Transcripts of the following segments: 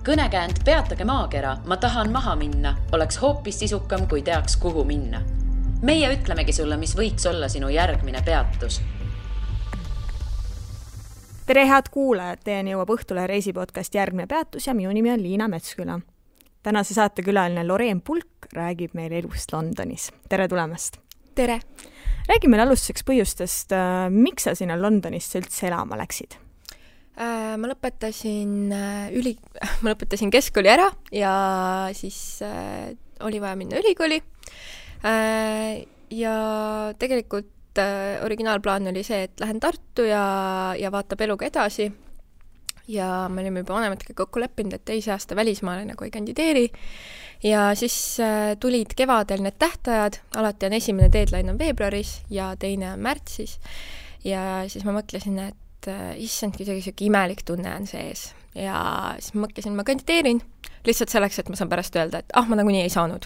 Kõnekäänd Peatage maakera, ma tahan maha minna, oleks hoopis sisukam, kui teaks, kuhu minna. Meie ütlemegi sulle, mis võiks olla sinu järgmine peatus. Tere head kuulajad, teieni jõuab Õhtule reisipodcast Järgmine peatus ja minu nimi on Liina Metsküla. Tänase saatekülaline Loreen Pulk räägib meile elust Londonis. Tere tulemast! Tere! Räägi meile alustuseks põhjustest, miks sa sinna Londonisse üldse elama läksid? Ma lõpetasin keskkooli ära ja siis oli vaja minna ülikooli. Ja tegelikult originaalplaan oli see, et lähen Tartu ja vaatab eluga edasi. Ja me olime juba vanematega kokku leppinud, et teise aasta välismaale nagu ei kandideeri. Ja siis tulid kevadel need tähtajad, alati on esimene deadline on veebruaris ja teine on märtsis. Ja siis ma mõtlesin, et issand, kuidagi siuke imelik tunne on sees. Ja siis ma mõtlesin, ma kandideerin lihtsalt selleks, et ma saan pärast öelda, et ma nagunii ei saanud.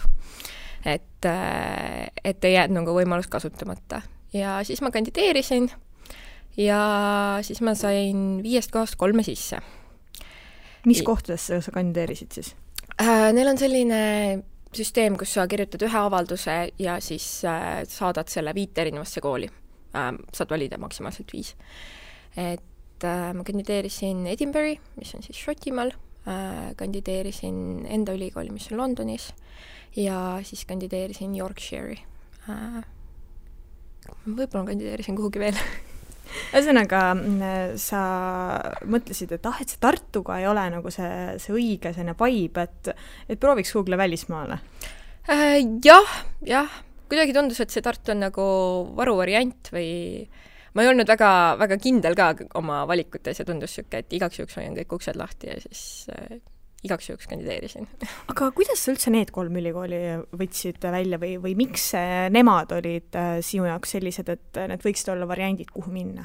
Et ei jäänud nagu võimalust kasutamata. Ja siis ma kandideerisin ja siis ma sain 5 kohast 3 sisse. Mis kohtadesse sa kandideerisid siis? Neil on selline süsteem, kus sa kirjutad ühe avalduse ja siis saadad selle 5 erinevasse kooli. Saad valida maksimaalselt 5. Et ma kandideerisin Edinburgh, mis on siis Šotimaal, kandideerisin enda ülikooli, mis on Londonis ja siis kandideerisin Yorkshire'i. Võib-olla kandideerisin kuhugi veel. Ühesõnaga, sa mõtlesid, et see Tartuga ei ole nagu see õige selline vibe, et prooviks kuhugi välismaale? Jah. Kuidagi tundus, et see Tartu on nagu varuvariant või ma ei olnud väga, väga kindel ka oma valikutes ja tundus siuke, et igaks juhuks hoian kõik uksed lahti ja siis igaks juhuks kandideerisin. Aga kuidas sa üldse need 3 ülikooli võtsid välja või miks nemad olid sinu jaoks sellised, et need võiksid olla variandid, kuhu minna?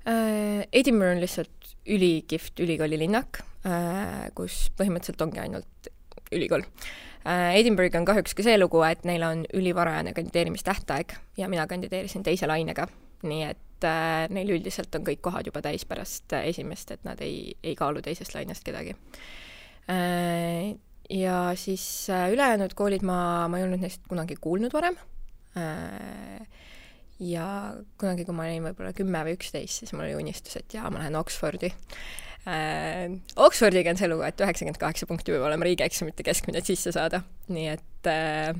Edinburgh on lihtsalt ülikihvt ülikoolilinnak, kus põhimõtteliselt ongi ainult ülikool. Edinburgh on kahjuks ka see lugu, et neil on ülivarajane kandideerimistähtaeg ja mina kandideerisin teise lainega, nii et neil üldiselt on kõik kohad juba täis pärast esimest, et nad ei kaalu teisest lainest kedagi. Ja siis ülejäänud koolid ma ei olnud neist kunagi kuulnud varem. Ja kunagi, kui ma olin võib-olla 10 või 11, siis mul oli unistus, et ma lähen Oxfordi. Oxfordiga on see lugu, et 98 punkti võib olema riigieksamite keskmine sisse saada. Nii et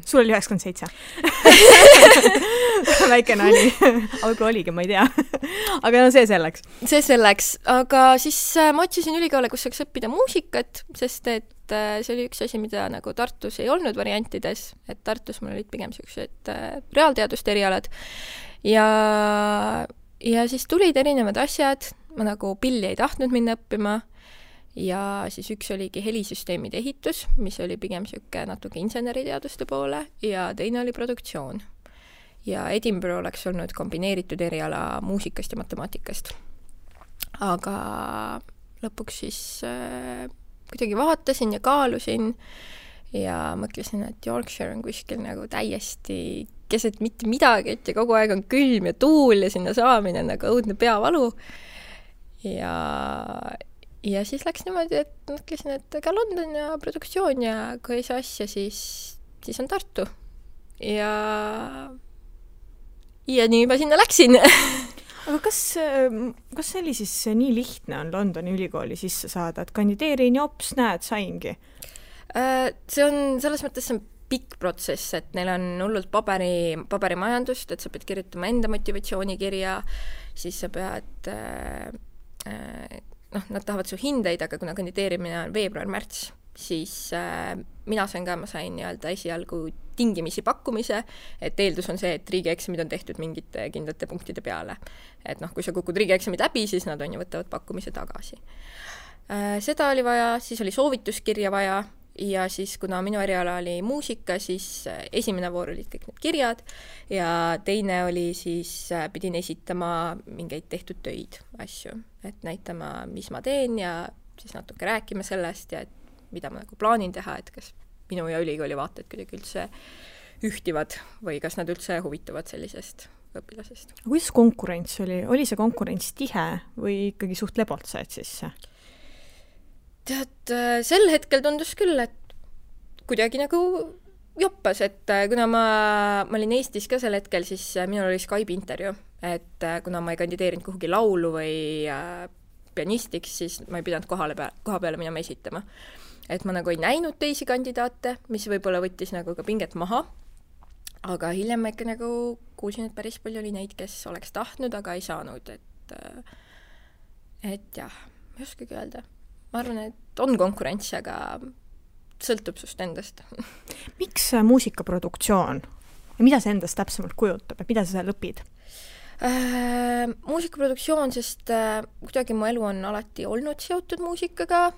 sul oli 97. Väike nali. Aga oligi, ma ei tea. Aga see selleks. See selleks. Aga siis ma otsisin ülikoole, kus saaks õppida muusikat, sest et see oli üks asi, mida nagu Tartus ei olnud variantides. Et Tartus mul olid pigem sellised reaalteaduste erialad. Ja siis tulid erinevad asjad. Ma nagu pilli ei tahtnud minna õppima ja siis üks oligi helisüsteemide ehitus, mis oli pigem siuke natuke inseneriteaduste poole ja teine oli produktsioon. Ja Edinburgh oleks olnud kombineeritud eriala muusikast ja matemaatikast. Aga lõpuks siis kuidagi vaatasin ja kaalusin ja mõtlesin, et Yorkshire on kuskil nagu täiesti keset mitte midagi, et ja kogu aeg on külm ja tuul ja sinna saamine nagu õudne peavalu. Ja siis läks niimoodi, et mõtlesin, et ka London ja produktsioon ja kui ei saa asja, siis on Tartu. Ja nii ma sinna läksin. Aga kas see oli siis nii lihtne on Londoni ülikooli sisse saada, et kandideerin ja hops, näed, saingi? See on selles mõttes pikk protsess, et neil on hullult paberimajandust, et sa pead kirjutama enda motivatsioonikirja, siis sa pead nad tahavad su hindeid, aga kuna kandideerimine on veebruar-märts, siis ma sain nii-öelda esialgu tingimisi pakkumise, et eeldus on see, et riigieksamid on tehtud mingite kindlate punktide peale. Et kui sa kukud riigieksamid läbi, siis nad võtavad pakkumise tagasi. Seda oli vaja, siis oli soovituskirja vaja ja siis kuna minu eriala oli muusika, siis esimene voor olid kõik need kirjad ja teine oli siis, pidin esitama mingeid tehtud töid asju, et näitama, mis ma teen ja siis natuke rääkima sellest ja mida ma nagu plaanin teha, et kas minu ja ülikooli vaated kuidagi üldse ühtivad või kas nad üldse huvituvad sellisest õpilasest. Kuidas konkurents oli? Oli see konkurents tihe või ikkagi suht lebalt said sisse? Tead, sel hetkel tundus küll, et kuidagi nagu joppas, et kuna ma olin Eestis ka sel hetkel, siis minul oli Skype'i intervjuu, et kuna ma ei kandideerinud kuhugi laulu või pianistiks, siis ma ei pidanud koha peale minema esitama. Et ma nagu ei näinud teisi kandidaate, mis võib-olla võttis nagu ka pinget maha, aga hiljem ma ikka nagu kuulsin, et päris palju oli neid, kes oleks tahtnud, aga ei saanud, et jah, ma ei oskagi öelda. Ma arvan, et on konkurents, aga sõltub sust endast. Miks muusikaproduktsioon? Ja mida see endast täpsemalt kujutab? Ja mida sa seal õpid? Muusikaproduktsioon, sest kuidagi mu elu on alati olnud seotud muusikaga,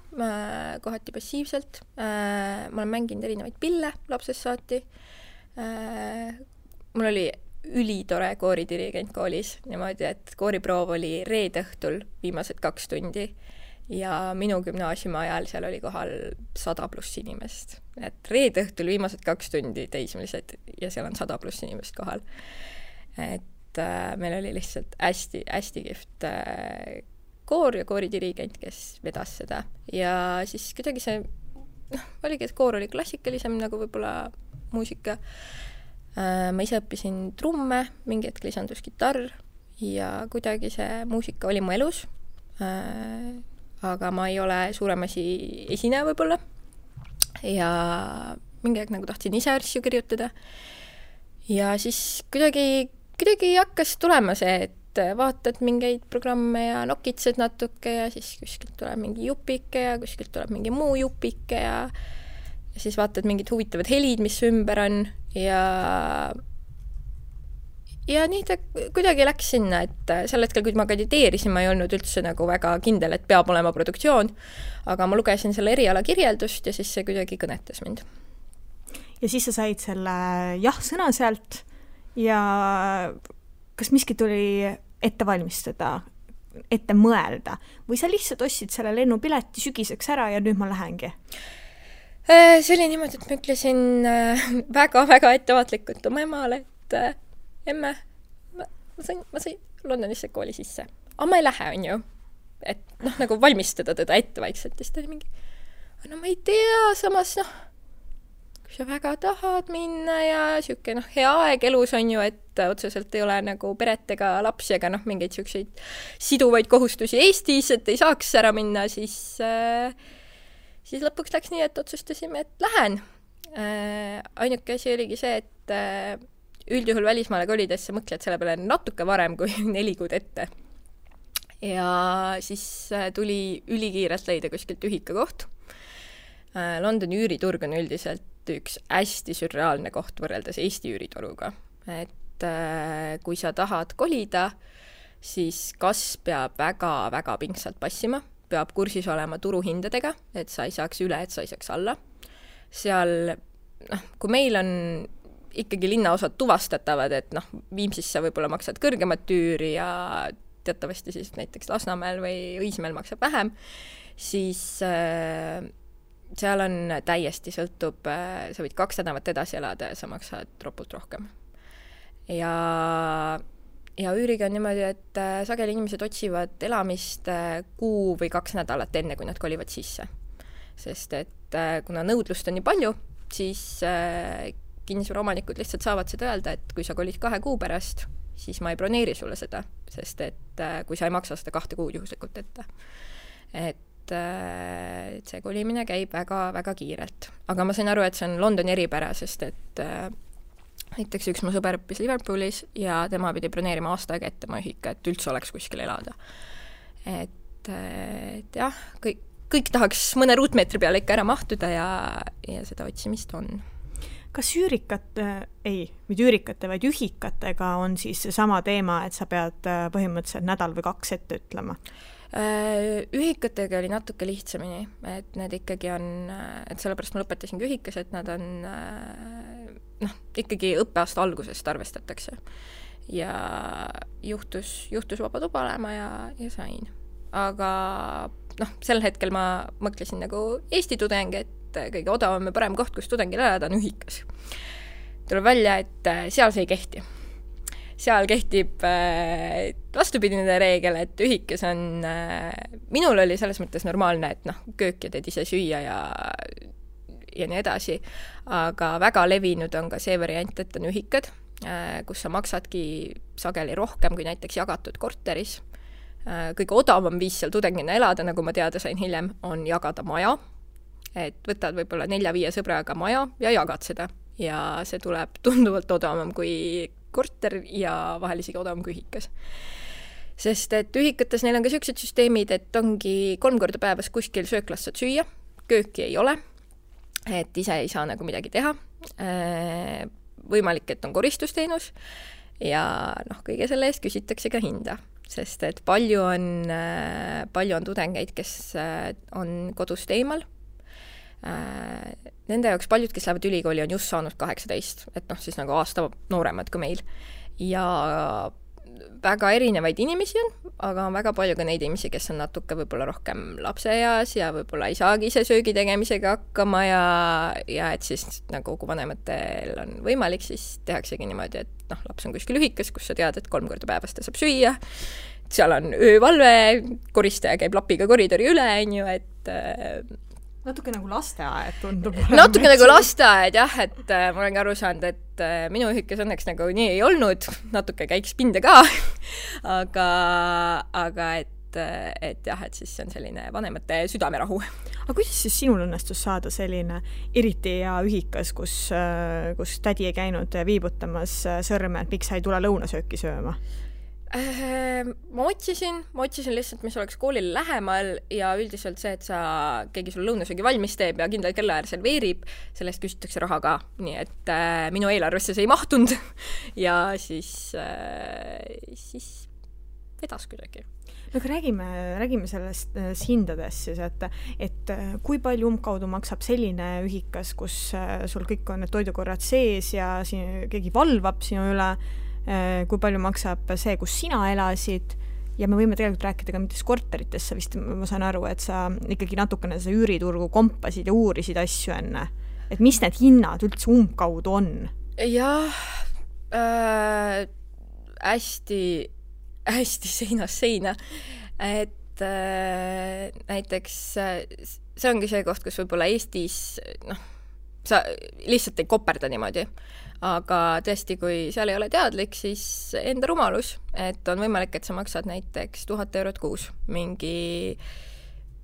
kohati passiivselt. Ma olen mänginud erinevaid pille lapsest saati. Mul oli ülitore kooridirigent koolis, niimoodi, et kooriproov oli reede õhtul viimased 2 tundi ja minu gümnaasiumi ajal seal oli kohal 100+ inimest. Et reede õhtul viimased 2 tundi teismelised ja seal on 100+ inimest kohal. Et meil oli lihtsalt hästi kihvt koor ja kooridirigent, kes vedas seda. Ja siis kuidagi see, oligi, et koor oli klassikalisem nagu võib-olla muusika. Ma ise õppisin trumme, mingi hetk lisandus kitarr ja kuidagi see muusika oli mu elus. Aga ma ei ole suuremasi esineja võib-olla. Ja mingi hetk nagu tahtsin ise asju kirjutada. Ja siis kuidagi hakkas tulema see, et vaatad mingeid programme ja nokitsed natuke ja siis kuskilt tuleb mingi jupike ja kuskilt tuleb mingi muu jupike ja siis vaatad mingid huvitavad helid, mis ümber on ja nii ta kuidagi läks sinna, et sel hetkel, kui ma kandideerisin, ma ei olnud üldse nagu väga kindel, et peab olema produktsioon, aga ma lugesin selle eriala kirjeldust ja siis see kuidagi kõnetas mind. Ja siis sa said selle jah-sõna sealt ja kas miski tuli ette valmistada, ette mõelda või sa lihtsalt ostsid selle lennupileti sügiseks ära ja nüüd ma lähengi? See oli niimoodi, et ma ütlesin väga ettevaatlikult oma emale, et emme, ma sain Londonisse kooli sisse. Aga ma ei lähe, on ju. Et nagu valmistada teda ette vaikselt. Ja siis ta oli mingi, no ma ei tea, samas kui sa väga tahad minna ja siuke hea aeg elus on ju, et otseselt ei ole nagu peret ega lapsi ega mingeid siukseid siduvaid kohustusi Eestis, et ei saaks ära minna, siis lõpuks läks nii, et otsustasime, et lähen. Ainuke asi oligi see, et üldjuhul välismaale kolides sa mõtled selle peale natuke varem kui 4 kuud ette. Ja siis tuli ülikiirelt leida kuskilt ühikakoht. Londoni üüriturg on üldiselt üks hästi sürreaalne koht võrreldes Eesti üürituruga. Et kui sa tahad kolida, siis kas peab väga pingsalt passima, peab kursis olema turuhindadega, et sa ei saaks üle, et sa ei saaks alla. Seal, kui meil on ikkagi linnaosad tuvastatavad, et Viimsisse võib-olla maksad kõrgemat tüüri ja teatavasti siis näiteks Lasnamäel või Õismäel maksab vähem, siis seal on täiesti sõltub, sa võid 2 nädalat edasi elada ja sa maksad ropult rohkem. Ja üüriga on niimoodi, et sageli inimesed otsivad elamist 1 kuu või 2 nädalat enne, kui nad kolivad sisse. Sest et kuna nõudlust on nii palju, siis kinnisvaraomanikud lihtsalt saavad seda öelda, et kui sa kolid 2 kuu pärast, siis ma ei broneeri sulle seda, sest et kui sa ei maksa seda 2 kuud juhuslikult ette. Et see kolimine käib väga kiirelt. Aga ma sain aru, et see on Londoni eripära, sest et näiteks üks mu sõber õppis Liverpoolis ja tema pidi broneerima aasta aega ette ma ühika, et üldse oleks kuskil elada. Et jah, kõik tahaks mõne ruutmeetri peale ikka ära mahtuda ja seda otsimist on. Kas üürikate, vaid ühikatega on siis sama teema, et sa pead põhimõtteliselt nädal või 2 ette ütlema? Ühikatega oli natuke lihtsamini, et need ikkagi on, et sellepärast ma lõpetasingi ühikas, et nad on ikkagi õppeaasta algusest arvestatakse. Ja juhtus vaba tuba olema ja sain. Aga sel hetkel ma mõtlesin nagu Eesti tudeng, et kõige odavam ja parem koht, kus tudengil elada on ühikas. Tuleb välja, et seal see ei kehti. seal kehtib vastupidine reegel, et ühikas on, minul oli selles mõttes normaalne, et köök ja teed ise süüa ja nii edasi, aga väga levinud on ka see variant, et on ühikad, kus sa maksadki sageli rohkem kui näiteks jagatud korteris. Kõige odavam viis seal tudengina elada, nagu ma teada sain hiljem, on jagada maja, et võtad võib-olla 4-5 sõbraga maja ja jagad seda. Ja see tuleb tunduvalt odavam kui korter ja vahel isegi odavam kui ühikas. Sest et ühikates neil on ka sellised süsteemid, et ongi 3 korda päevas kuskil sööklas saad süüa, kööki ei ole, et ise ei saa nagu midagi teha. Võimalik, et on koristusteenus ja kõige selle eest küsitakse ka hinda, sest et palju on tudengeid, kes on kodust eemal. Nende jaoks paljud, kes lähevad ülikooli, on just saanud 18, et siis nagu aasta nooremad kui meil. Ja väga erinevaid inimesi on, aga on väga palju ka neid inimesi, kes on natuke võib-olla rohkem lapseeas ja võib-olla ei saagi ise söögi tegemisega hakkama ja et siis nagu kui vanematel on võimalik, siis tehaksegi niimoodi, et laps on kuskil ühikas, kus sa tead, et 3 korda päevas ta saab süüa, seal on öövalve, koristaja käib lapiga koridori üle, et natuke nagu lasteaed tundub. Natuke nagu lasteaed, jah, et ma olen ka aru saanud, et minu ühikas õnneks nagu nii ei olnud, natuke käiks pinde ka, aga et jah, et siis on selline vanemate südamerahu. Aga kuidas siis sinul õnnestus saada selline eriti hea ühikas, kus tädi ei käinud viibutamas sõrme, et miks sa ei tule lõunasööki sööma? Ma otsisin lihtsalt, mis oleks koolile lähemal ja üldiselt see, et keegi sul lõunasöögi valmis teeb ja kindlal kellaajal serveerib, sellest küsitakse raha ka, nii et minu eelarvesse see ei mahtunud ja siis vedas kuidagi. No aga räägime sellest hindadest siis, et kui palju umbkaudu maksab selline ühikas, kus sul kõik on need toidukorrad sees ja keegi valvab sinu üle, kui palju maksab see, kus sina elasid ja me võime tegelikult rääkida ka mitmes korterites, sa vist, ma saan aru, et sa ikkagi natukene see üüriturgu kompasid ja uurisid asju enne, et mis need hinnad üldse umbkaudu on? Jah, hästi seinast seina, et näiteks see ongi see koht, kus võib-olla Eestis sa lihtsalt ei koperda niimoodi. Aga tõesti, kui seal ei ole teadlik, siis enda rumalus, et on võimalik, et sa maksad näiteks 1000 eurot kuus mingi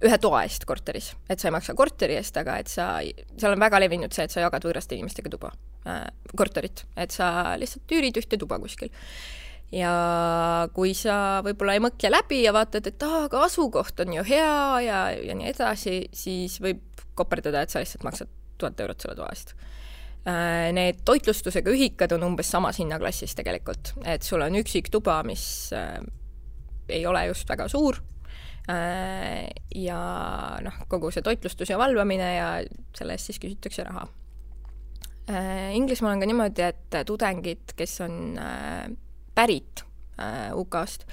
ühe toa eest korteris. Et sa ei maksa korteri eest, aga et seal on väga levinud see, et sa jagad võõraste inimestega tuba, korterit. Et sa lihtsalt üürid ühte tuba kuskil. Ja kui sa võib-olla ei mõtle läbi ja vaatad, et aga asukoht on ju hea ja nii edasi, siis võib koperdada, et sa lihtsalt maksad 1000 eurot selle toa eest. Need toitlustusega ühikad on umbes samas hinnaklassis tegelikult, et sul on üksik tuba, mis ei ole just väga suur ja kogu see toitlustus ja valvamine ja selle eest siis küsitakse raha. Inglismaal on ka niimoodi, et tudengid, kes on pärit UK-st,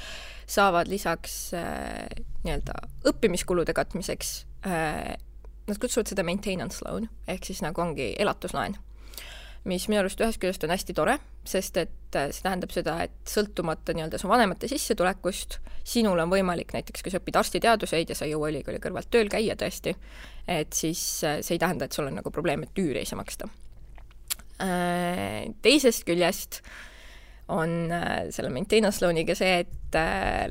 saavad lisaks nii-öelda õppimiskulude katmiseks, nad kutsuvad seda maintenance loan, ehk siis nagu ongi elatuslaen, mis minu arust ühest küljest on hästi tore, sest et see tähendab seda, et sõltumata nii-öelda su vanemate sissetulekust, sinul on võimalik näiteks, kui sa õpid arstiteaduseid ja sa ei jõua ülikooli kõrvalt tööl käia tõesti, et siis see ei tähenda, et sul on nagu probleem, et üüri ei saa maksta. Teisest küljest on selle maintenance loaniga see, et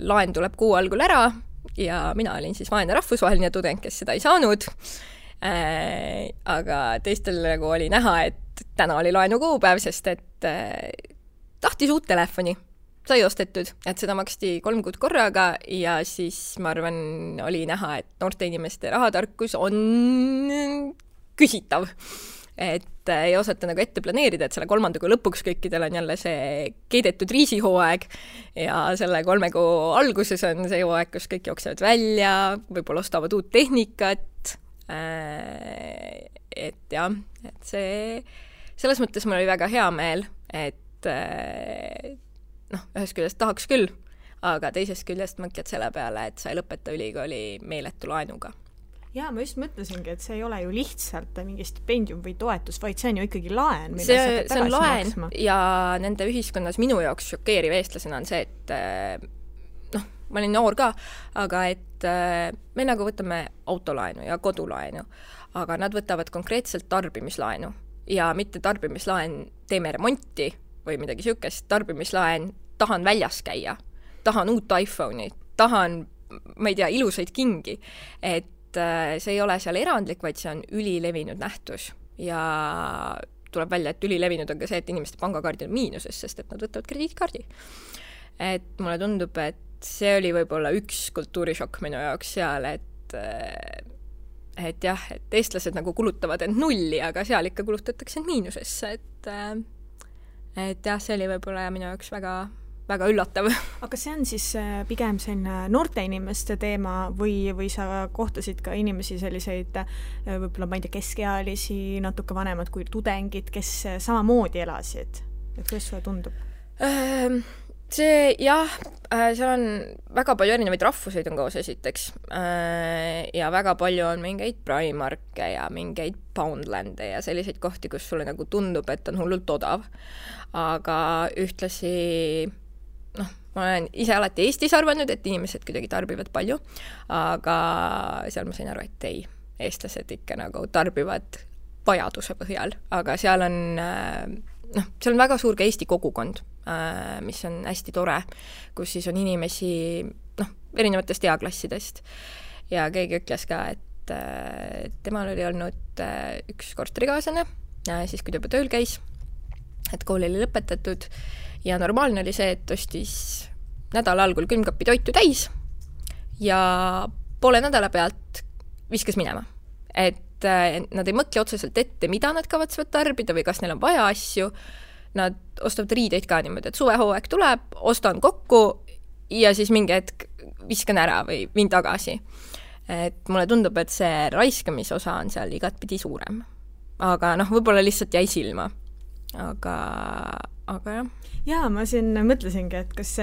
laen tuleb kuu algul ära ja mina olin siis vaene rahvusvaheline tudeng, kes seda ei saanud, aga teistel nagu oli näha, et täna oli laenu kuupäev, sest et tahtis uut telefoni, sai ostetud, et seda maksti 3 kuud korraga ja siis ma arvan, oli näha, et noorte inimeste rahatarkus on küsitav. Et ei osata nagu ette planeerida, et selle 3. kuu lõpuks kõikidel on jälle see keidetud riisihooaeg ja selle 3 kuu alguses on see hooaeg, kus kõik jooksevad välja, võib-olla ostavad uut tehnikat, et jah, et selles mõttes mul oli väga hea meel, et ühest küljest tahaks küll, aga teisest küljest mõtled selle peale, et sa ei lõpeta ülikooli meeletu laenuga. Jaa, ma just mõtlesingi, et see ei ole ju lihtsalt mingi stipendium või toetus, vaid see on ju ikkagi laen, mida see on laen maksma. Ja nende ühiskonnas minu jaoks šokeeriv eestlasena on see, et ma olin noor ka, aga et me nagu võtame autolaenu ja kodulaenu, aga nad võtavad konkreetselt tarbimislaenu ja mitte tarbimislaen teeme remonti või midagi siukest, tarbimislaen tahan väljas käia, tahan uut iPhone'i, tahan, ma ei tea, ilusaid kingi, et see ei ole seal erandlik, vaid see on ülilevinud nähtus ja tuleb välja, et ülilevinud on ka see, et inimeste pangakaardid on miinuses, sest et nad võtavad krediitkaardi. Et mulle tundub, et see oli võib-olla üks kultuurishokk minu jaoks seal, et jah, et eestlased nagu kulutavad end nulli, aga seal ikka kulutatakse end miinusesse, et jah, see oli võib-olla minu jaoks väga, väga üllatav. Aga see on siis pigem selline noorte inimeste teema või sa kohtasid ka inimesi selliseid võib-olla, ma ei tea, keskealisi, natuke vanemad kui tudengid, kes samamoodi elasid? Et kuidas sulle tundub? See, jah, seal on väga palju erinevaid rahvuseid on koos esiteks ja väga palju on mingeid Primarke ja mingeid Poundlande ja selliseid kohti, kus sulle nagu tundub, et on hullult odav. Aga ühtlasi, ma olen ise alati Eestis arvanud, et inimesed kuidagi tarbivad palju, aga seal ma sain aru, et ei, eestlased ikka nagu tarbivad vajaduse põhjal, aga seal on seal on väga suur ka Eesti kogukond, mis on hästi tore, kus siis on inimesi erinevatest eaklassidest ja keegi ütles ka, et temal oli olnud üks korterikaaslane, siis kui ta juba tööl käis, et kool oli lõpetatud ja normaalne oli see, et ostis nädala algul külmkapi toitu täis ja poole nädala pealt viskas minema, et nad ei mõtle otseselt ette, mida nad kavatsevad tarbida või kas neil on vaja asju. Nad ostavad riideid ka niimoodi, et suvehooaeg tuleb, ostan kokku ja siis mingi hetk viskan ära või viin tagasi. Et mulle tundub, et see raiskamisosa on seal igatpidi suurem. Aga võib-olla lihtsalt jäi silma. Aga jah. Jaa, ma siin mõtlesingi, et kas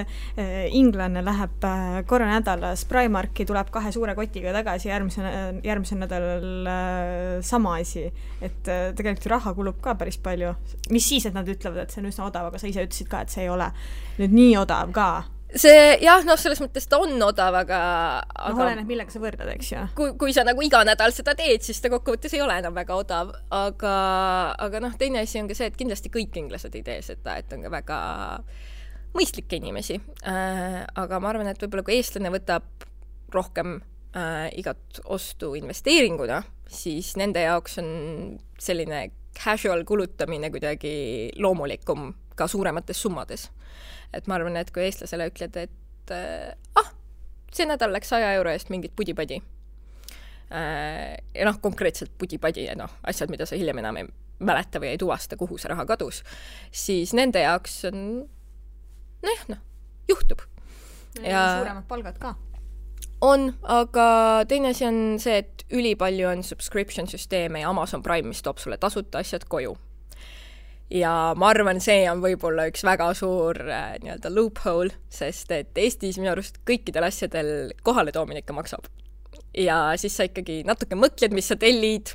inglane läheb korra nädalas Primarki, tuleb 2 suure kotiga tagasi järgmisel nädalal sama asi. Et tegelikult raha kulub ka päris palju. Mis siis, et nad ütlevad, et see on üsna odav, aga sa ise ütlesid ka, et see ei ole nüüd nii odav ka. See, jah, selles mõttes ta on odav, aga oleneb, millega sa võrdad, eks ju? Kui sa nagu iga nädal seda teed, siis ta kokkuvõttes ei ole enam väga odav, aga teine asi on ka see, et kindlasti kõik inglased ei tee seda, et on ka väga mõistlikke inimesi. Aga ma arvan, et võib-olla kui eestlane võtab rohkem igat ostu investeeringuna, siis nende jaoks on selline casual kulutamine kuidagi loomulikum ka suuremates summades. Et ma arvan, et kui eestlasele ütled, et see nädal läks 100 euro eest mingit pudipadi. Ja konkreetselt pudipadi ja asjad, mida sa hiljem enam ei mäleta või ei tuvasta, kuhu see raha kadus, siis nende jaoks on juhtub. Ja suuremad palgad ka. On, aga teine asi on see, et ülipalju on subscription süsteeme ja Amazon Prime, mis toob sulle tasuta asjad koju. Ja ma arvan, see on võib-olla üks väga suur loophole, sest et Eestis minu arust kõikidel asjadel kohale toomine ikka maksab. Ja siis sa ikkagi natuke mõtled, mis sa tellid,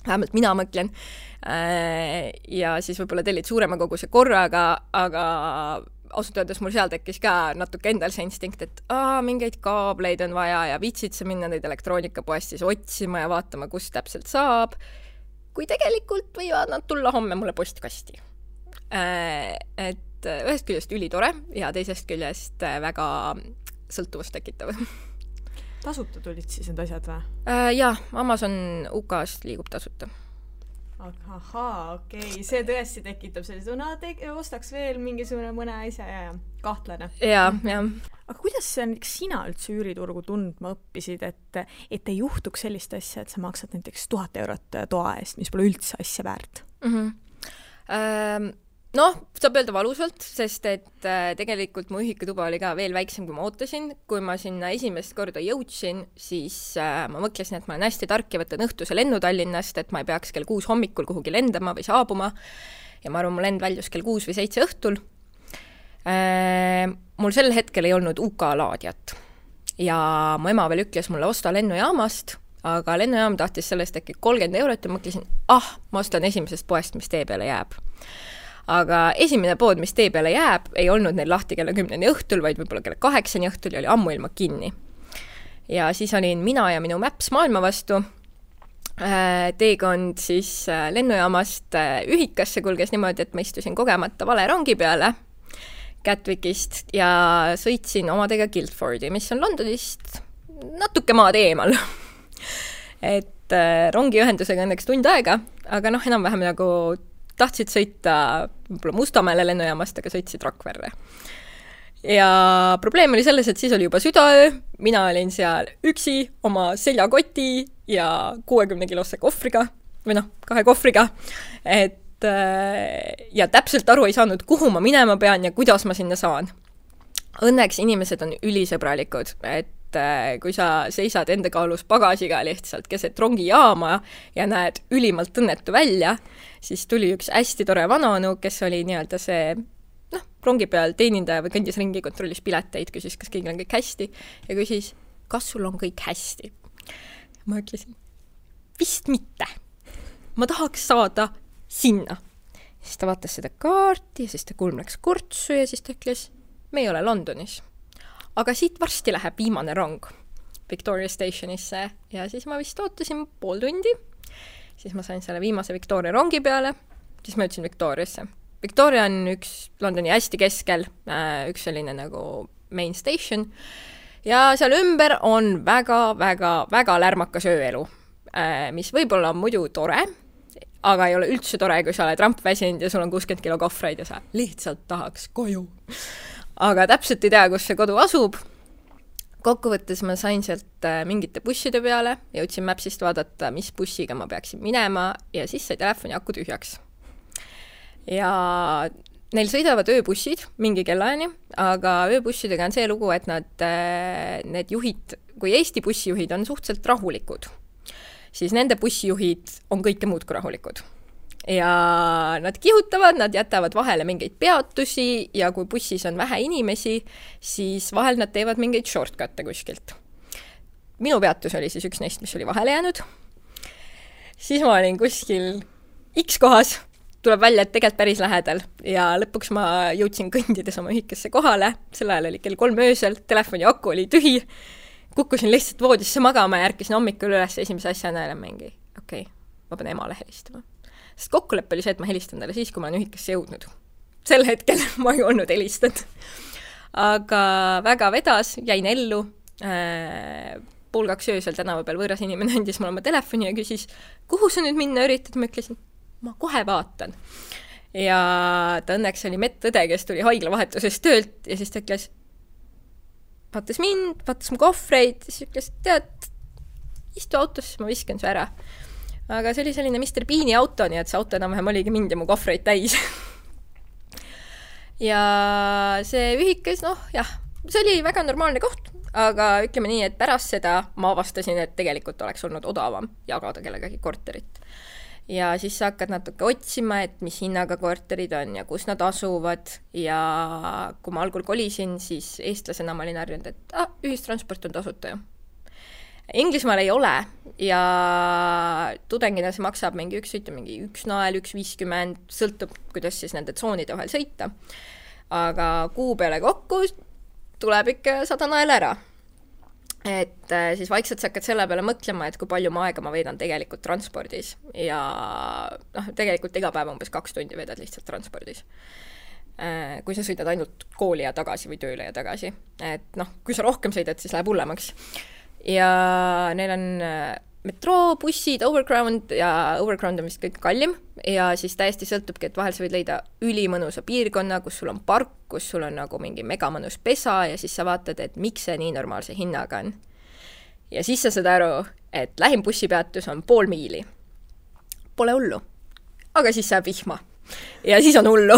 vähemalt mina mõtlen, ja siis võib-olla tellid suurema koguse korraga, aga ausalt öeldes mul seal tekkis ka natuke endal see instinkt, et mingeid kaableid on vaja ja viitsid sa minna neid elektroonikapoest siis otsima ja vaatama, kus täpselt saab, kui tegelikult võivad nad tulla homme mulle postkasti. Et ühest küljest ülitore ja teisest küljest väga sõltuvust tekitav. Tasuta tulid siis need asjad või? Jah, Amazon UK-st liigub tasuta. Ahaa, okei. See tõesti tekitab sellise, ostaks veel mingisugune mõne asja ja kahtlane. Ja. Aga kuidas sina üldse üüriturgu tundma õppisid, et ei juhtuks sellist asja, et sa maksad näiteks 1000 eurot toa eest, mis pole üldse asja väärt? Saab öelda valusalt, sest et tegelikult mu ühikutuba oli ka veel väiksem, kui ma ootasin. Kui ma sinna esimest korda jõudsin, siis ma mõtlesin, et ma olen hästi tark ja võtan õhtuse lennu Tallinnast, et ma ei peaks kell 6 hommikul kuhugi lendama või saabuma. Ja ma arvan, mu lend väljus kell 6 või 7 õhtul. Mul sel hetkel ei olnud UK laadjat ja mu ema veel ütles mulle osta lennujaamast aga lennujaam tahtis sellest äkki 30 € ja mõtlesin, ma ostan esimesest poest, mis tee peale jääb. Aga esimene pood, mis tee peale jääb, ei olnud neil lahti kella 10 õhtul, vaid võib-olla kella 8 õhtul ja oli ammuilma kinni. Ja siis olin mina ja minu Maps maailma vastu. Teekond siis lennujaamast Ühikasse kulges niimoodi, et ma istusin kogemata vale rongi peale Gatwickist ja sõitsin omadega Guildfordi, mis on Londonist natuke maad eemal. Et rongiühendusega õnneks tund aega, aga enam-vähem nagu tahtsid sõita Mustamäele lennujaamast, aga sõitsid Rakverre. Ja probleem oli selles, et siis oli juba südaöö, mina olin seal üksi oma seljakoti ja 60-kilose kohvriga, või 2 kohvriga, ja täpselt aru ei saanud, kuhu ma minema pean ja kuidas ma sinna saan. Õnneks inimesed on ülisõbralikud, et kui sa seisad enda kaalus pagasiga lihtsalt keset rongijaama ja näed ülimalt õnnetu välja, siis tuli üks hästi tore vanaonu, kes oli nii-öelda see rongi peal teenindaja või kõndis ringi, kontrollis pileteid, küsis, kas kõigil on kõik hästi ja küsis, kas sul on kõik hästi. Ma ütlesin, vist mitte. Ma tahaks saada sinna. Siis ta vaatas seda kaarti ja siis ta kulm läks kortsu ja siis ta ütles, me ei ole Londonis. Aga siit varsti läheb viimane rong Victoria Stationisse ja siis ma vist ootasin pool tundi. Siis ma sain selle viimase Victoria rongi peale, siis ma ütlesin Victoriasse. Victoria on üks Londoni hästi keskel, üks selline nagu main station ja seal ümber on väga lärmakas ööelu, mis võib-olla on muidu tore, aga ei ole üldse tore, kui sa oled rampväsinud ja sul on 60 kilo kohvreid ja sa lihtsalt tahaks koju. Aga täpselt ei tea, kus see kodu asub. Kokkuvõttes ma sain sealt mingite busside peale, jõudsin Mapsist vaadata, mis bussiga ma peaksin minema ja siis sai telefoni aku tühjaks. Ja neil sõidavad ööbussid mingi kellaani, aga ööbussidega on see lugu, et need juhid, kui Eesti bussijuhid on suhteliselt rahulikud, siis nende bussijuhid on kõike muud kui rahulikud. Ja nad kihutavad, nad jätavad vahele mingeid peatusi ja kui bussis on vähe inimesi, siis vahel nad teevad mingeid shortcut'e kuskilt. Minu peatus oli siis üks neist, mis oli vahele jäänud. Siis ma olin kuskil X kohas, tuleb välja, et tegelikult päris lähedal ja lõpuks ma jõudsin kõndides oma ühikasse kohale, sel ajal oli kell 3 öösel, telefoni aku oli tühi, kukkusin lihtsalt voodisse magama ja ärkisin hommikul üles esimese asjana ja mingi, ma pean emale helistama. Sest kokkulepe oli see, et ma helistan talle siis, kui ma olen ühikasse jõudnud. Sel hetkel ma ei olnud helistanud. Aga väga vedas, jäin ellu. 1:30 öösel tänava peal võõras inimene andis mulle oma telefoni ja küsis, kuhu sa nüüd minna üritad? Ma ütlesin, ma kohe vaatan. Ja ta õnneks oli medõde, kes tuli haiglavahetusest töölt ja siis ta ütles, vaatas mind, vaatas mu kohvreid ja siis ütles, tead, istu autosse, ma viskan su ära. Aga see oli selline Mr. Beani auto, nii et see auto enam-vähem oligi mind ja mu kohvreid täis. Ja see ühikas, see oli väga normaalne koht, aga ütleme nii, et pärast seda ma avastasin, et tegelikult oleks olnud odavam jagada kellegagi korterit. Ja siis sa hakkad natuke otsima, et mis hinnaga korterid on ja kus nad asuvad ja kui ma algul kolisin, siis eestlasena ma olin harjunud, et ühistransport on tasuta ju. Inglismaal ei ole ja tudengina see maksab mingi üks nael, 1,50, sõltub, kuidas siis nende tsoonide vahel sõita. Aga kuu peale kokku tuleb ikka 100 nael ära. Et siis vaikselt sa hakkad selle peale mõtlema, et kui palju aega ma veedan tegelikult transpordis ja tegelikult iga päev umbes 2 tundi veedad lihtsalt transpordis. Kui sa sõidad ainult kooli ja tagasi või tööle ja tagasi. Et kui sa rohkem sõidad, siis läheb hullemaks. Ja neil on metroo, bussid, overground ja overground on vist kõik kallim ja siis täiesti sõltubki, et vahel sa võid leida ülimõnusa piirkonna, kus sul on park, kus sul on nagu mingi megamõnus pesa ja siis sa vaatad, et miks see nii normaalse hinnaga on. Ja siis sa saad aru, et lähim bussipeatus on 0,5 miili. Pole hullu, aga siis saab vihma ja siis on hullu.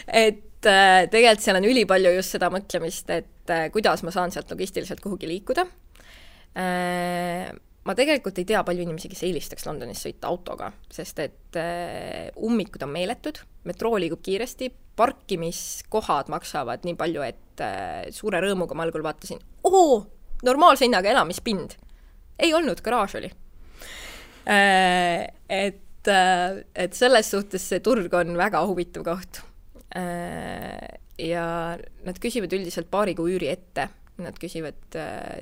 Et tegelikult seal on ülipalju just seda mõtlemist, et kuidas ma saan sealt logistiliselt kuhugi liikuda. Ma tegelikult ei tea palju inimesi, kes eelistaks Londonis sõita autoga, sest et ummikud on meeletud, metroo liigub kiiresti, parkimiskohad maksavad nii palju, et suure rõõmuga ma algul vaatasin, normaalse hinnaga elamispind. ei olnud, garaaž oli. Et selles suhtes see turg on väga huvitav koht. Ja nad küsivad üldiselt paari kuu üüri ette. Nad küsivad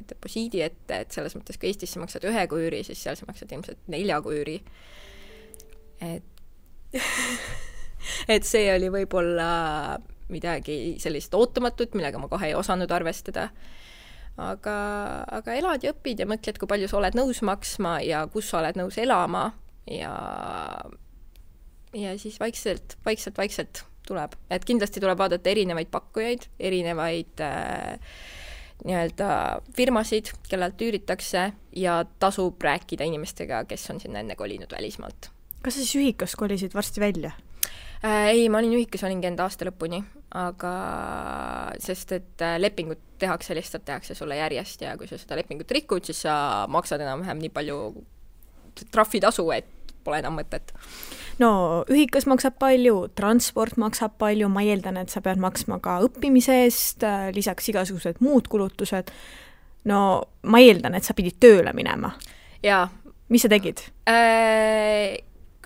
deposiidi ette, et selles mõttes, kui Eestis sa maksad 1 kuu üüri, siis seal sa maksad ilmselt 4 kuu üüri. Et see oli võib-olla midagi sellist ootamatut, millega ma kohe ei osanud arvestada. Aga elad ja õpid ja mõtled, kui palju sa oled nõus maksma ja kus sa oled nõus elama ja siis vaikselt tuleb. Et kindlasti tuleb vaadata erinevaid pakkujaid, erinevaid nii-öelda firmasid, kellelt üüritakse ja tasub rääkida inimestega, kes on sinna enne kolinud välismaalt. Kas sa siis ühikas kolisid varsti välja? Ei, ma olin ühikas, olingi enda aasta lõpuni, aga sest, et lepingut tehakse sulle järjest ja kui sa seda lepingut rikud, siis sa maksad enam-vähem nii palju trahvitasu, et pole enam mõtet. No, ühikas maksab palju, transport maksab palju, ma eeldan, et sa pead maksma ka õppimise eest, lisaks igasugused muud kulutused. No, ma eeldan, et sa pidid tööle minema. Jaa. Mis sa tegid?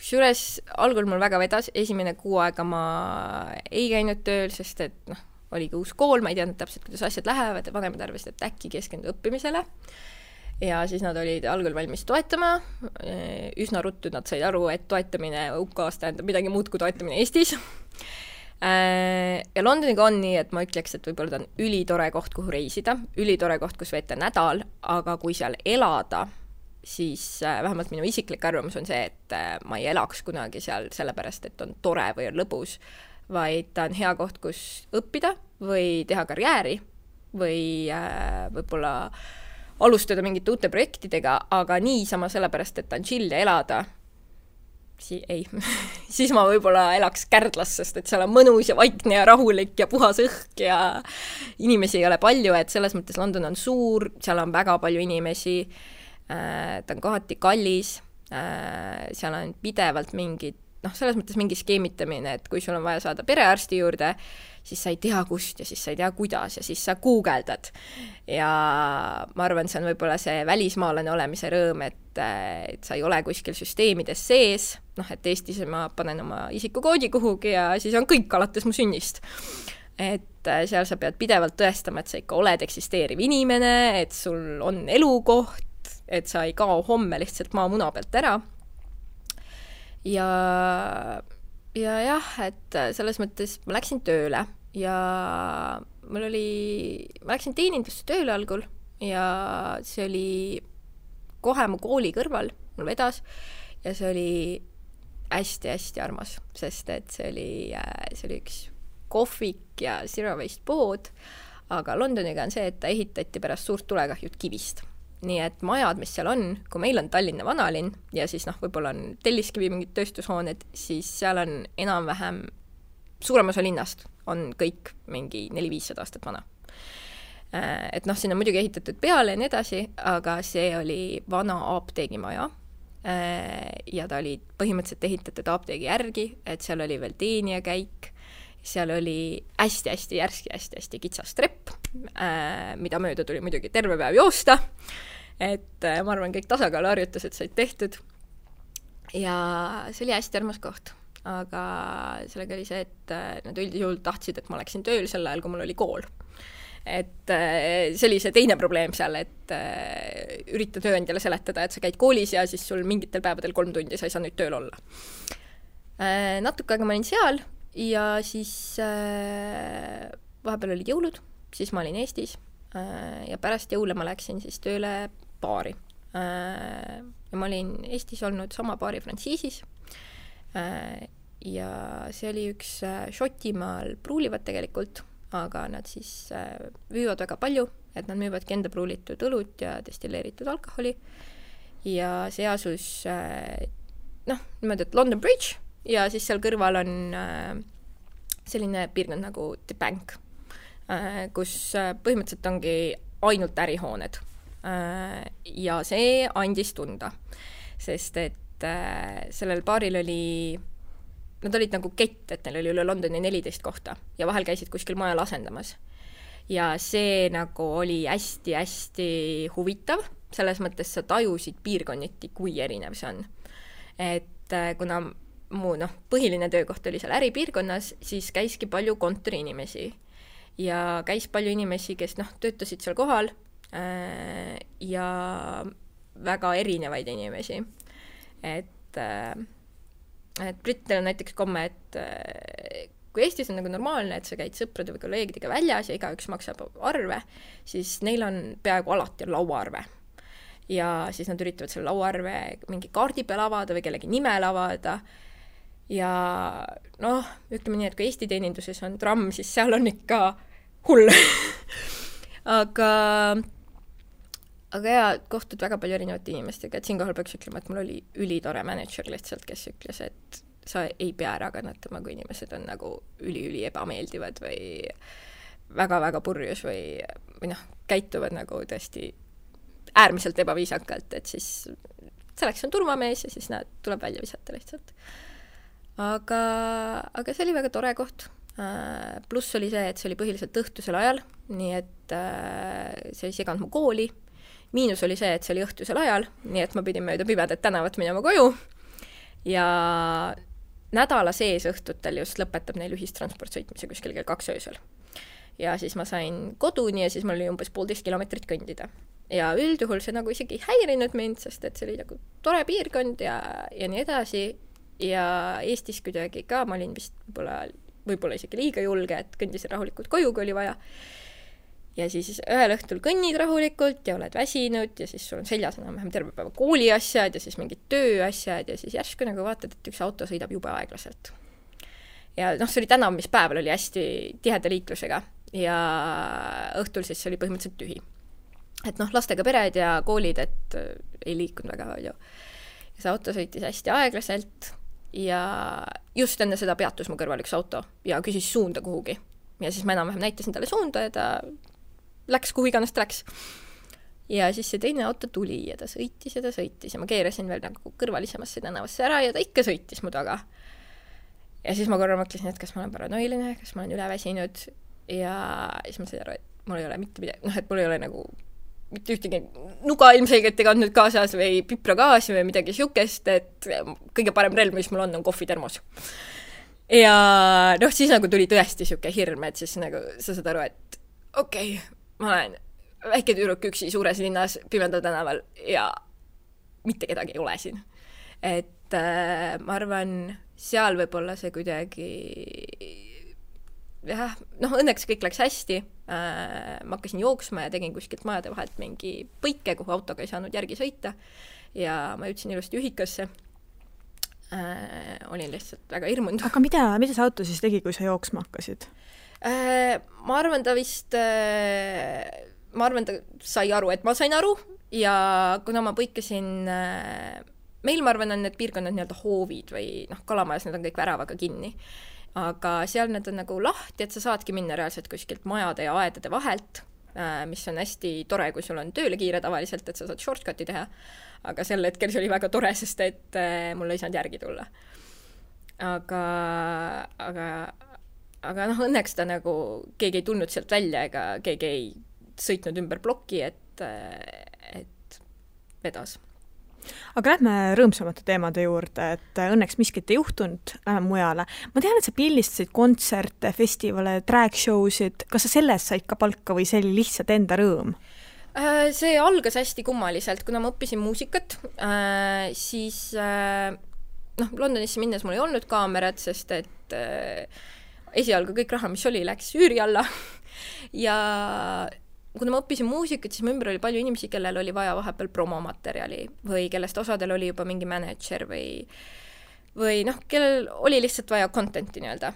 Kusjuures algul mul väga vedas, esimene 6 aega ma ei käinud tööl, sest et oligi uus kool, ma ei teadnud täpselt, kuidas asjad lähevad ja vanemad arvasid, et äkki keskendu õppimisele. Ja siis nad olid algul valmis toetama. Üsna ruttu nad said aru, et toetamine UK-s tähendab midagi muud kui toetamine Eestis. Ja Londoniga on nii, et ma ütleks, et võib-olla ta on ülitore koht, kuhu reisida, ülitore koht, kus veeta nädal, aga kui seal elada, siis vähemalt minu isiklik arvamus on see, et ma ei elaks kunagi seal sellepärast, et on tore või on lõbus, vaid ta on hea koht, kus õppida või teha karjääri või võib-olla alustada mingite uute projektidega, aga niisama sellepärast, et ta on chill ja elada, siis ma võib-olla elaks Kärdlas, sest et seal on mõnus ja vaikne ja rahulik ja puhas õhk ja inimesi ei ole palju, et selles mõttes London on suur, seal on väga palju inimesi, ta on kohati kallis, seal on pidevalt mingid, selles mõttes mingi skeemitamine, et kui sul on vaja saada perearsti juurde, siis sa ei tea kust ja siis sa ei tea kuidas ja siis sa guugeldad. Ja ma arvan, see on võib-olla see välismaalane olemise rõõm, et sa ei ole kuskil süsteemides sees, et Eestis ma panen oma isikukoodi kuhugi ja siis on kõik alates mu sünnist. Et seal sa pead pidevalt tõestama, et sa ikka oled eksisteeriv inimene, et sul on elukoht, et sa ei kao homme lihtsalt maamuna pealt ära. Ja jah, et selles mõttes ma läksin tööle ja ma läksin teenindusse tööle algul ja see oli kohe mu kooli kõrval, mul vedas ja see oli hästi-hästi armas, sest et see oli üks kohvik ja zero waste pood, aga Londoniga on see, et ta ehitati pärast suurt tulekahjut kivist. Nii et majad, mis seal on, kui meil on Tallinna vanalinn ja siis võib-olla on Telliskivi mingid tööstushooned, siis seal on enam-vähem suurem osa linnast on kõik mingi 400-500 aastat vana. Et siin on muidugi ehitatud peale ja nii edasi, aga see oli vana apteegimaja ja ta oli põhimõtteliselt ehitatud apteegi järgi, et seal oli veel teenija käik, seal oli hästi-hästi järski, hästi-hästi kitsas trepp, mida mööda tuli muidugi terve päev joosta, et ma arvan, kõik tasakaaluharjutused said tehtud ja see oli hästi armas koht, aga sellega oli see, et nad üldjuhul tahtsid, et ma läksin tööl sel ajal, kui mul oli kool. Et see oli see teine probleem seal, et ürita tööandjale seletada, et sa käid koolis ja siis sul mingitel päevadel 3 tundi sa ei saa nüüd tööl olla. Natuke aega ma olin seal ja siis vahepeal olid jõulud, siis ma olin Eestis ja pärast jõule ma läksin siis tööle baari. Ja ma olin Eestis olnud sama baari frantsiisis ja see oli üks Šotimaal pruulivad tegelikult, aga nad siis müüvad väga palju, et nad müüvadki enda pruulitud õlut ja destilleeritud alkoholi ja see asus niimoodi, et London Bridge ja siis seal kõrval on selline piirkond nagu The Bank, kus põhimõtteliselt ongi ainult ärihooned. Ja see andis tunda, sest et sellel baaril nad olid nagu kett, et neil oli üle Londoni 14 kohta ja vahel käisid kuskil majal asendamas. Ja see nagu oli hästi-hästi huvitav, selles mõttes sa tajusid piirkonniti, kui erinev see on. Et kuna mu põhiline töökoht oli seal äripiirkonnas, siis käiski palju kontoriinimesi ja käis palju inimesi, kes töötasid seal kohal ja väga erinevaid inimesi. Et brittidel on näiteks komme, et kui Eestis on nagu normaalne, et sa käid sõprade või kolleegidega väljas ja igaüks maksab arve, siis neil on peaaegu alati lauaarve. Ja siis nad üritavad selle lauaarve mingi kaardi peal avada või kellegi nimel avada. Ja ütleme nii, et kui Eesti teeninduses on tramm, siis seal on ikka hull. aga ja kohtud väga palju erinevate inimestega, et siinkohal peaks ütlema, et mul oli ülitore manager lihtsalt, kes ütles, et sa ei pea ära kannatama, kui inimesed on nagu üli ebameeldivad või väga-väga purjus või käituvad nagu tõesti äärmiselt ebaviisakalt, et siis selleks on turvamees ja siis nad tuleb välja visata lihtsalt. Aga see oli väga tore koht. Pluss oli see, et see oli põhiliselt õhtusel ajal, nii et see ei seganud mu kooli. Miinus oli see, et see oli õhtusel ajal, nii et ma pidin mööda pimedat tänavat minema koju ja nädala sees õhtutel just lõpetab neil ühistransport sõitmise kuskil kell 2 öösel. Ja siis ma sain koduni ja siis mul oli umbes 1,5 kilomeetrit kõndida. Ja üldjuhul see nagu isegi ei häirinud mind, sest et see oli nagu tore piirkond ja nii edasi. Ja Eestis kuidagi ka, ma olin vist võib-olla isegi liiga julge, et kõndisin rahulikult koju, kui oli vaja. Ja siis ühel õhtul kõnnid rahulikult ja oled väsinud ja siis sul on seljas enam-vähem terve päeva kooliasjad ja siis mingid tööasjad ja siis järsku nagu vaatad, et üks auto sõidab jube aeglaselt. Ja see oli tänav, mis päeval oli hästi tiheda liiklusega ja õhtul siis oli põhimõtteliselt tühi. Et lastega pered ja koolid, et ei liikunud väga palju. Ja see auto sõitis hästi aeglaselt ja just enne seda peatus mu kõrval üks auto ja küsis suunda kuhugi. Ja siis ma enam-vähem näitasin talle suunda ja ta läks kuhu iganes ta läks. Ja siis see teine auto tuli ja ta sõitis ja ma keerasin veel nagu kõrvalisemasse tänavasse ära ja ta ikka sõitis mu taga. Ja siis ma korra mõtlesin, et kas ma olen paranoiline, kas ma olen üleväsinud ja siis ma sain aru, et mul ei ole mitte midagi, et mul ei ole nagu mitte ühtegi nuga ilmselgelt ei kandnud kaasas või pipragaasi või midagi siukest, et kõige parem relv, mis mul on kohvitermos. Ja siis nagu tuli tõesti siuke hirm, et siis nagu sa saad aru, et okei, ma olen väike tüdruk üksi suures linnas pimedal tänaval ja mitte kedagi ei ole siin. Et ma arvan, seal võib-olla see kuidagi õnneks kõik läks hästi. Ma hakkasin jooksma ja tegin kuskilt majade vahelt mingi põike, kuhu autoga ei saanud järgi sõita ja ma jõudsin ilusti ühikasse. Olin lihtsalt väga hirmunud. Aga mida see auto siis tegi, kui sa jooksma hakkasid? Ma arvan, ta sai aru, et ma sain aru ja kuna ma põikasin meil, ma arvan, on need piirkonnad nii-öelda hoovid või kalamajas, need on kõik väravaga kinni. Aga seal need on nagu lahti, et sa saadki minna reaalselt kuskilt majade ja aedade vahelt, mis on hästi tore, kui sul on tööle kiire tavaliselt, et sa saad shortcuti teha. Aga sel hetkel see oli väga tore, sest et mul ei saanud järgi tulla. Aga õnneks ta nagu keegi ei tulnud sealt välja ega keegi ei sõitnud ümber ploki, et vedas. Aga lähme rõõmsamate teemade juurde, et õnneks miskit ei juhtunud, lähme mujale. Ma tean, et sa pildistasid kontserte, festivale, drag showsid. Kas sa sellest said ka palka või see oli lihtsalt enda rõõm? See algas hästi kummaliselt, kuna ma õppisin muusikat, siis Londonisse minnes mul ei olnud kaamerat, sest et esialgu kõik raha, mis oli, läks üüri alla ja kuna ma õppisin muusikat, siis mu ümber oli palju inimesi, kellel oli vaja vahepeal promomaterjali või kellest osadel oli juba mingi manager või kellel oli lihtsalt vaja contenti nii-öelda.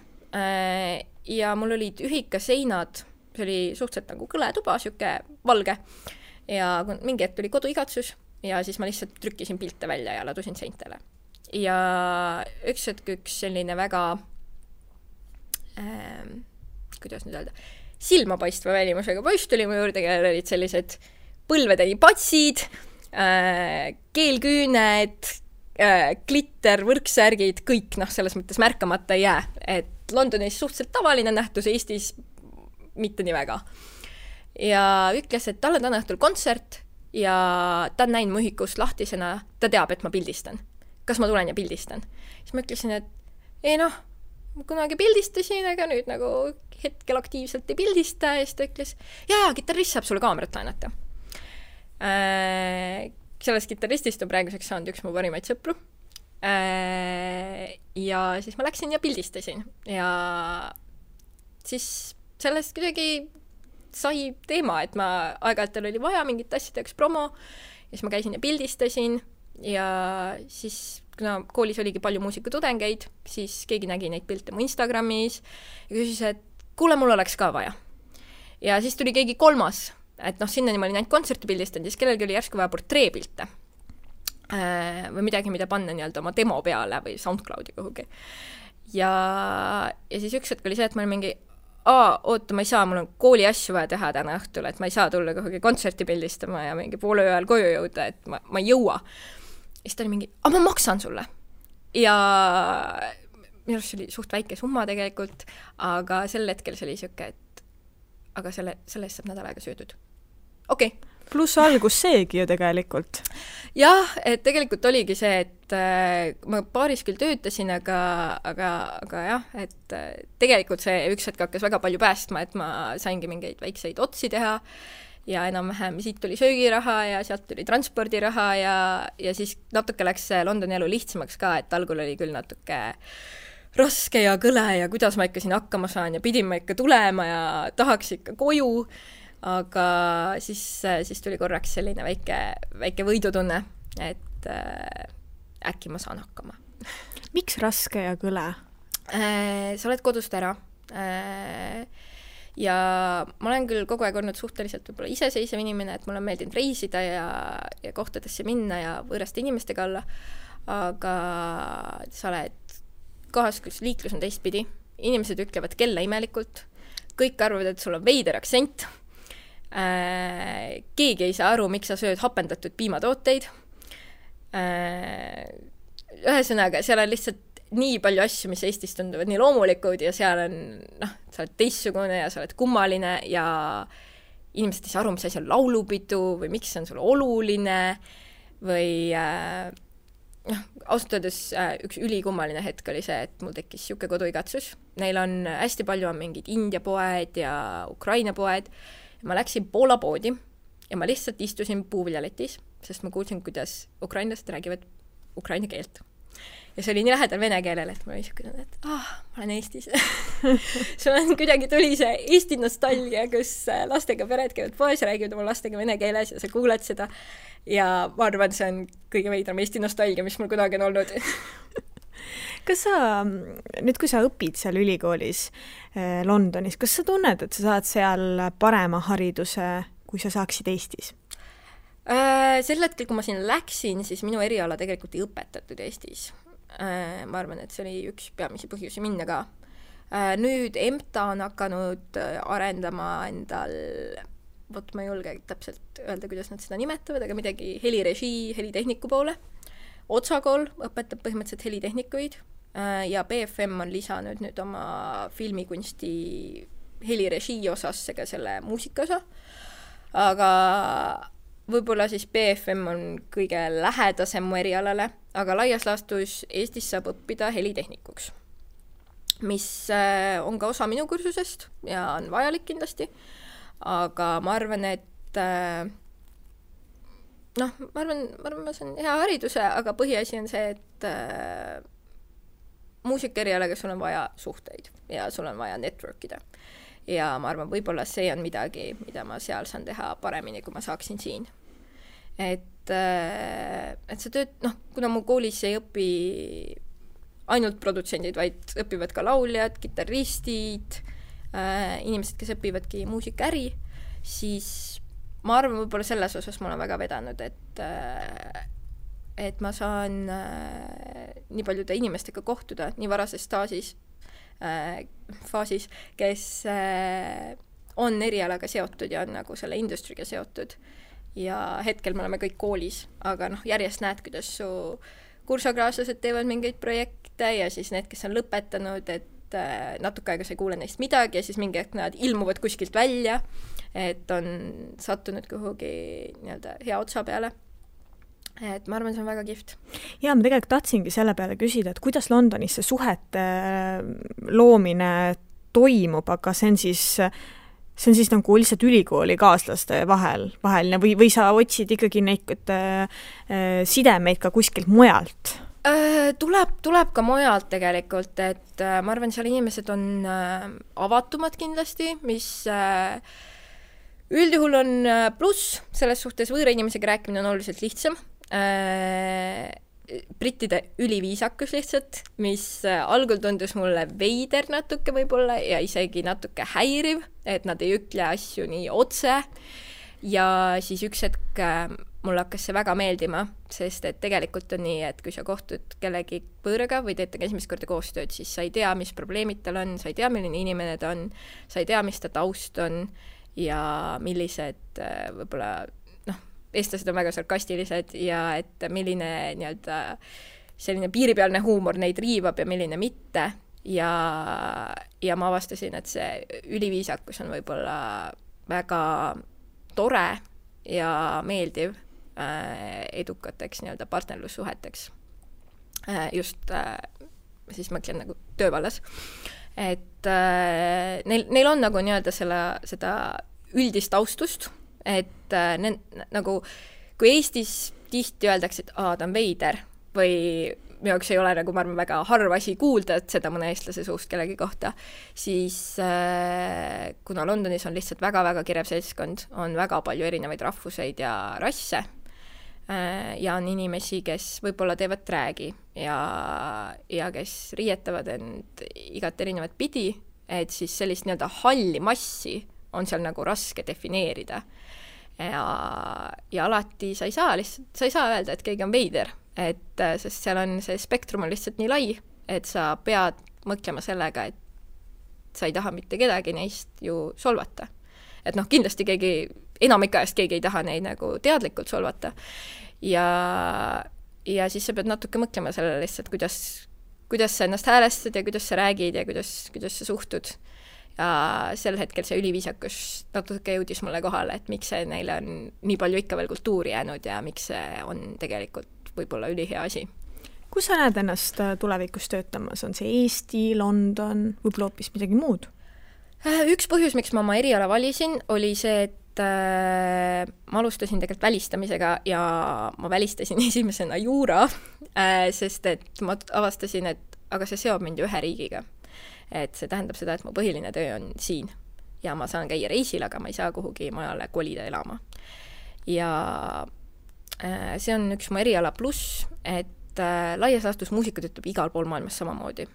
Ja mul olid ühikaseinad, see oli suhteliselt nagu kõletuba, siuke valge ja mingi hetk tuli koduigatsus ja siis ma lihtsalt trükkisin pilte välja ja ladusin seintele. Ja üks selline väga kuidas nüüd öelda, silmapaistva välimusega poiss tuli mu juurde, kellel olid sellised põlvedeni patsid, keelküüned, glitter, võrksärgid, kõik selles mõttes märkamata ei jää. Et Londonis suhteliselt tavaline nähtus, Eestis mitte nii väga. Ja ütles, et tal on täna õhtul kontsert ja ta on näinud mu ühikust lahtisena, ta teab, et ma pildistan. Kas ma tulen ja pildistan? Siis ma ütlesin, et ei noh, kunagi pildistasin, aga nüüd nagu hetkel aktiivselt ei pildista ja siis ta ütles, jaa, kitarrist saab sulle kaamerat laenata. Sellest kitarristist on praeguseks saanud üks mu parimaid sõpru. Ja siis ma läksin ja pildistasin ja siis sellest kuidagi sai teema, et ma aeg-ajalt oli vaja mingit asjadeks promo ja siis ma käisin ja pildistasin ja siis kuna koolis oligi palju muusikatudengeid, siis keegi nägi neid pilte mu Instagramis ja küsis, et kuule, mul oleks ka vaja. Ja siis tuli keegi kolmas, et noh, sinnani ma olin ainult kontserti pildistanud, siis kellelgi oli järsku vaja portreepilte või midagi, mida panna nii-öelda oma demo peale või SoundCloudi kuhugi. Ja siis üks hetk oli see, et ma olin mingi oota, ma ei saa, mul on kooli asju vaja teha täna õhtul, et ma ei saa tulla kuhugi kontserti pildistama ja mingi poole ööl koju jõuda, et ma ei jõua. Ja siis ta oli mingi, ma maksan sulle. Ja minu arust see oli suht väike summa tegelikult, aga sel hetkel see oli siuke, et aga selle eest saab nädal aega söödud. Okei. Pluss algus seegi ju tegelikult. Jah, et tegelikult oligi see, et ma paaris küll töötasin, aga jah, et tegelikult see üks hetk hakkas väga palju päästma, et ma saingi mingeid väikseid otsi teha ja enam-vähem siit tuli söögiraha ja sealt tuli transpordiraha ja siis natuke läks Londoni elu lihtsamaks ka, et algul oli küll natuke raske ja kõle ja kuidas ma ikka siin hakkama saan ja pidin ma ikka tulema ja tahaks ikka koju, aga siis tuli korraks selline väike võidutunne, et äkki ma saan hakkama. Miks raske ja kõle? Sa oled kodust ära ja ma olen küll kogu aeg olnud suhteliselt võib-olla iseseisev inimene, et mulle on meeldinud reisida ja kohtadesse minna ja võõraste inimestega olla, aga sa oled kohas, kus liiklus on teistpidi, inimesed ütlevad kella imelikult, kõik arvavad, et sul on veider aktsent, keegi ei saa aru, miks sa sööd hapendatud piimatooteid. Ühesõnaga, seal on lihtsalt nii palju asju, mis Eestis tunduvad nii loomulikud ja seal on, sa oled teistsugune ja sa oled kummaline ja inimesed ei saa aru, mis asi on laulupidu või miks see on sulle oluline või ausalt öeldes üks ülikummaline hetk oli see, et mul tekkis siuke koduigatsus. Neil on hästi palju on mingid India poed ja Ukraina poed. Ma läksin Poola poodi ja ma lihtsalt istusin puuviljaletis, sest ma kuulsin, kuidas ukrainlased räägivad ukraina keelt. Ja see oli nii lähedal vene keelele, et ma oli niisugune, et ma olen Eestis. Sul on kuidagi tuli see Eesti nostalgia, kus lastega pered käivad poes ja räägivad oma lastega vene keeles ja sa kuuled seda. Ja ma arvan, see on kõige veidram Eesti nostalgia, mis mul kunagi on olnud. Kas sa, nüüd kui sa õpid seal ülikoolis Londonis, kas sa tunned, et sa saad seal parema hariduse, kui sa saaksid Eestis? Sel hetkel, kui ma siin läksin, siis minu eriala tegelikult ei õpetatud Eestis. Ma arvan, et see oli üks peamisi põhjusi minna ka. Nüüd EMTA on hakanud arendama endal, ma ei julge täpselt öelda, kuidas nad seda nimetavad, aga midagi helirežii, helitehniku poole. Otsakool õpetab põhimõtteliselt helitehnikuid ja BFM on lisanud nüüd oma filmikunsti helirežii osasse ka selle muusika osa. Aga võib-olla siis BFM on kõige lähedasem mu erialale, aga laias laastus Eestis saab õppida helitehnikuks, mis on ka osa minu kursusest ja on vajalik kindlasti, aga ma arvan, et ma arvan, see on hea hariduse, aga põhiasi on see, et muusikaerialaga sul on vaja suhteid ja sul on vaja networkida. Ja ma arvan, võib-olla see on midagi, mida ma seal saan teha paremini, kui ma saaksin siin. Et see tööd, kuna mu koolis ei õpi ainult produtsendid, vaid õpivad ka lauljad, kitarristid, inimesed, kes õpivadki muusikaäri, siis ma arvan, võib-olla selles osas ma olen väga vedanud, et ma saan nii paljude inimestega kohtuda nii varases faasis, kes on erialaga seotud ja on nagu selle industriga seotud. Ja hetkel me oleme kõik koolis, aga järjest näed, kuidas su kursakaaslased teevad mingeid projekte ja siis need, kes on lõpetanud, et et natuke aega sa ei kuule neist midagi ja siis mingi hetk nad ilmuvad kuskilt välja, et on sattunud kuhugi nii-öelda hea otsa peale. Et ma arvan, see on väga kihvt. Ja ma tegelikult tahtsingi selle peale küsida, et kuidas Londonis see suhete loomine toimub, aga see on siis nagu lihtsalt ülikooli kaaslaste vaheline või sa otsid ikkagi neid sidemeid ka kuskilt mujalt? Tuleb ka mujalt tegelikult, et ma arvan, seal inimesed on avatumad kindlasti, mis üldjuhul on pluss, selles suhtes võõra inimesega rääkimine on oluliselt lihtsam. Brittide üliviisakus lihtsalt, mis algul tundus mulle veider natuke võib-olla ja isegi natuke häiriv, et nad ei ütle asju nii otse ja siis üks hetk mulle hakkas see väga meeldima, sest et tegelikult on nii, et kui sa kohtud kellegi võõraga või teete esimest korda koostööd, siis sa ei tea, mis probleemid tal on, sa ei tea, milline inimene ta on, sa ei tea, mis ta taust on ja millised võib-olla eestlased on väga sarkastilised ja et milline nii-öelda selline piiripealne huumor neid riivab ja milline mitte ja ma avastasin, et see üliviisakus on võib-olla väga tore ja meeldiv edukateks nii-öelda partnerlussuheteks. Just siis mõtlen nagu töövallas. Et neil on nagu nii-öelda seda üldist taustust, et nagu kui Eestis tihti öeldakse, et ta on veider või minu jaoks ei ole nagu ma arvan väga harva asi kuulda, et seda mõne eestlase suust kellegi kohta, siis kuna Londonis on lihtsalt väga-väga kirev seltskond, on väga palju erinevaid rahvuseid ja rasse ja on inimesi, kes võib-olla teevad dräägi ja kes riietavad end igat erinevat pidi, et siis sellist nii-öelda halli massi on seal nagu raske defineerida. Ja alati sa ei saa öelda, et keegi on veider, sest seal on see spektrum on lihtsalt nii lai, et sa pead mõtlema sellega, et sa ei taha mitte kedagi neist ju solvata. Et kindlasti enamik ajast keegi ei taha neid nagu teadlikult solvata ja siis sa pead natuke mõtlema sellele lihtsalt, kuidas sa ennast häälestad ja kuidas sa räägid ja kuidas sa suhtud. Ja sel hetkel see üliviisakus natuke jõudis mulle kohale, et miks see neile on nii palju ikka veel kultuuri jäänud ja miks see on tegelikult võib-olla ülihea asi. Kus sa näed ennast tulevikus töötamas? On see Eesti, London, võib-olla hoopis midagi muud? Üks põhjus, miks ma oma eriala valisin, oli see, et ma alustasin tegelikult välistamisega ja ma välistasin esimesena juura, sest et ma avastasin, et aga see seob mind ju ühe riigiga. Et see tähendab seda, et mu põhiline töö on siin ja ma saan käia reisil, aga ma ei saa kuhugi majale kolida elama. Ja see on üks mu eriala pluss, et laias laastus muusika töötab igal pool maailmas samamoodi.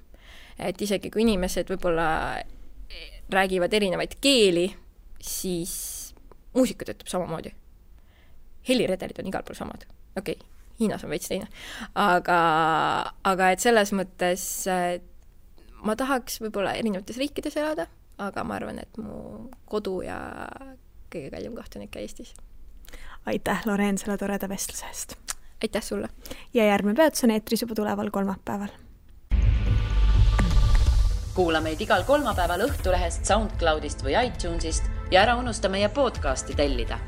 Et isegi kui inimesed võib-olla räägivad erinevaid keeli, siis muusika töötab samamoodi. Heliredelid on igal pool samad. Okei, Hiinas on veits teine. Aga et selles mõttes ma tahaks võib-olla erinevates riikides elada, aga ma arvan, et mu kodu ja kõige kallim koht on ikka Eestis. Aitäh, Loreen, selle toreda vestluse eest. Aitäh sulle. Ja järgmine peatus on eetris juba tuleval kolmapäeval. Kuula meid igal kolmapäeval Õhtulehest, SoundCloudist või iTunesist ja ära unusta meie podcasti tellida.